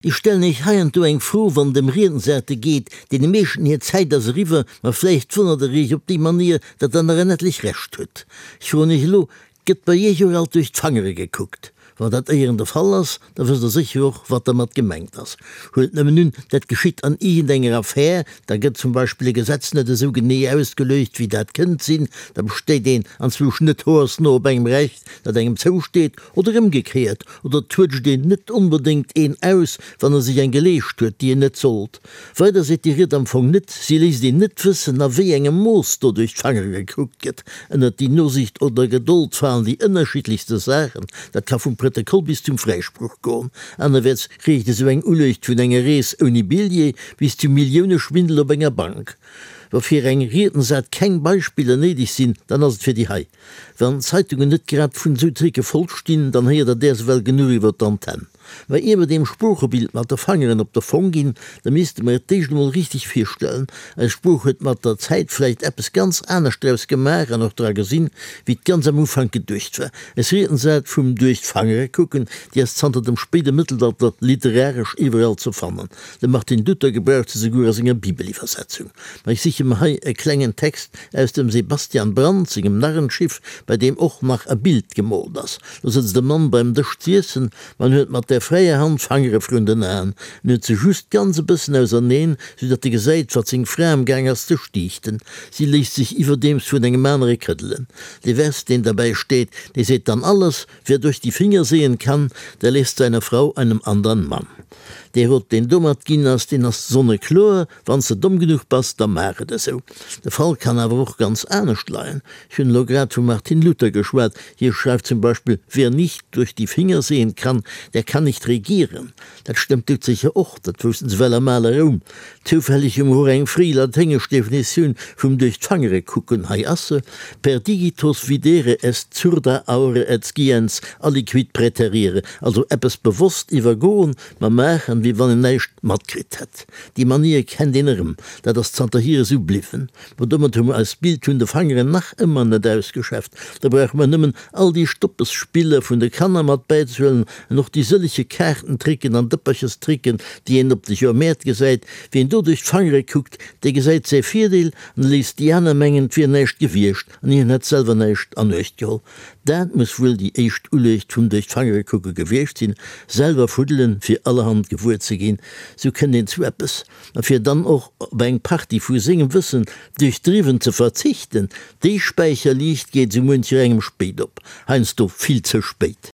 Ech stellen Iech heiansdo eng Fro, wann et ëm Riedensarte geet. Deene meeschten hir Zäit ass eriwwer, ma vläicht wonnert Der Iech op déi Manier, datt Der nach en etlech Rescht hutt. Ech froen Iech elo, Gëtt bei Iech och alt duerch d'Fangere gekuckt? Wann dat éieren de Fall ass, da wësst Der sécher och, wat dermat gemengt ass. Huelt nëmmen un, dat geschitt an iergendenger Affär, da gëtt zum Beispill e Gesetz net esou genee ausgeluecht, wéi dat kënnt sinn, da besteet een anzwousch net hoersno op engem Recht, dat engem zousteet, oder ëmgekéiert, oder et tuetscht een net onbedéngt een aus, wann e sech eng geleescht huet, déi en net sollt. Weider seet déi Ried am Fong net, si léisst een net wëssen, a wéi engem Mooss do duerch d'Fangere gekuckt gëtt. Ënnert déi Nosicht oder Gedold falen déi ënnerschiddlechste Saachen, dat ka vum Prëttekoll bis zum Fräisproch goen. Anerwäerts reecht esou eng Uluecht vun enger Rees ouni Billjee bis zum Milliouneschwindel op enger Bank. Wa fir eng Riedensart keng Beispiller néideg sinn, dann ass et fir déi hei. Wann d'Zeitungen net grad vun esou Tricke voll stinn, dann héiert der däers ewell genuch iwwer d'Antenn. Mä ier mer deem Sproochebild mat de Fangeren op de Fong ginn, da misste mer et d'éischt emol richteg virstellen. Eis Sprooch huet mat der Zäit vläicht eppes ganz anescht draus gemaach an och dra gesinn, wéi et ganz am Ufank geduecht war. Eis Riedensart vum duerch d'Fangere kucken, déi ass zanter dem spéide Mëttelalter literaresch iwwerall ze fannen. De Martin Luther gebraucht se souguer a senger Bibeliwwersetzung. Ma ech siche mer hei e klengen Text aus dem Sebastian Brant sengem Narrenschiff, bei deem och nach e Bild gemoolt ass. Do sëtzt e Mann beim Dësch z'iessen, ma en huet mat der fräier Hand d'Fangere vrun den Aen. En huet se just ganz e bëssen auserneen, sou datt e gesäit, wat seng Fra am Gaang ass ze stiichten. Si léisst sech iwwerdeems vun engem anere këddelen. De Vers, deen derbäi steet, dee seet dann alles, Wer durch die Finger sehen kann, der lässt seine Frau einem andern Mann. Dee Rot, deen domat ginn ass, deen ass sonnekloer, Wann s de domm genuch bass, da maach et esou. De Fall kann awer och ganz anescht leien. Ech hunn elo grad vum Martin Luther geschwat. Hie schreift zum Beispill, Wer nicht durch die Finger sehen kann, der kann nicht regieren. Dat stëmmt doudsécher och, dat woussten se well am ale Roum. Zoufälleg hu mer och eng fréi laténgesch Definitioun vum duerch d'Fangere kucken, hei ass se, Per digitos videre est surda aure et sciens aliquid praeterire, also eppes bewosst iwwergoen, ma maachen, wéi wann een näischt matkritt hätt. Déi Manier kennt een erëm, dat ass zanterhier esou bliwwen. Ma domat hu mer eist Bild vun de Fangeren nach ëmmer net ausgeschäfft. Da brauche mer nëmmen all déi Stoppesspiller vun de Kanner mat bäizehuelen an och déi sëllege Kaartentricken an Dëpperchestricken, déi een op de Joermäert gesäit. Wien do duerch d'Fangere kuckt, dee gesäit säi Virdeel an léisst déi aner mengen, 't wier näischt gewiescht an hien hätt selwer näischt an Uecht geholl. Dat muss wuel déi éischt Uluecht vum duerch d'Fangere kucke gewiescht sinn, selwer fuddelen, fir allerhand gewuer ze ginn. Sou kënnt een zu eppes. A fir dann och op eng Partie vu sengem Wëssen duerchdriwwen ze verzichten, déi Späicherliicht geet sou muencherengem spéit op, heiansdo vill ze spéit.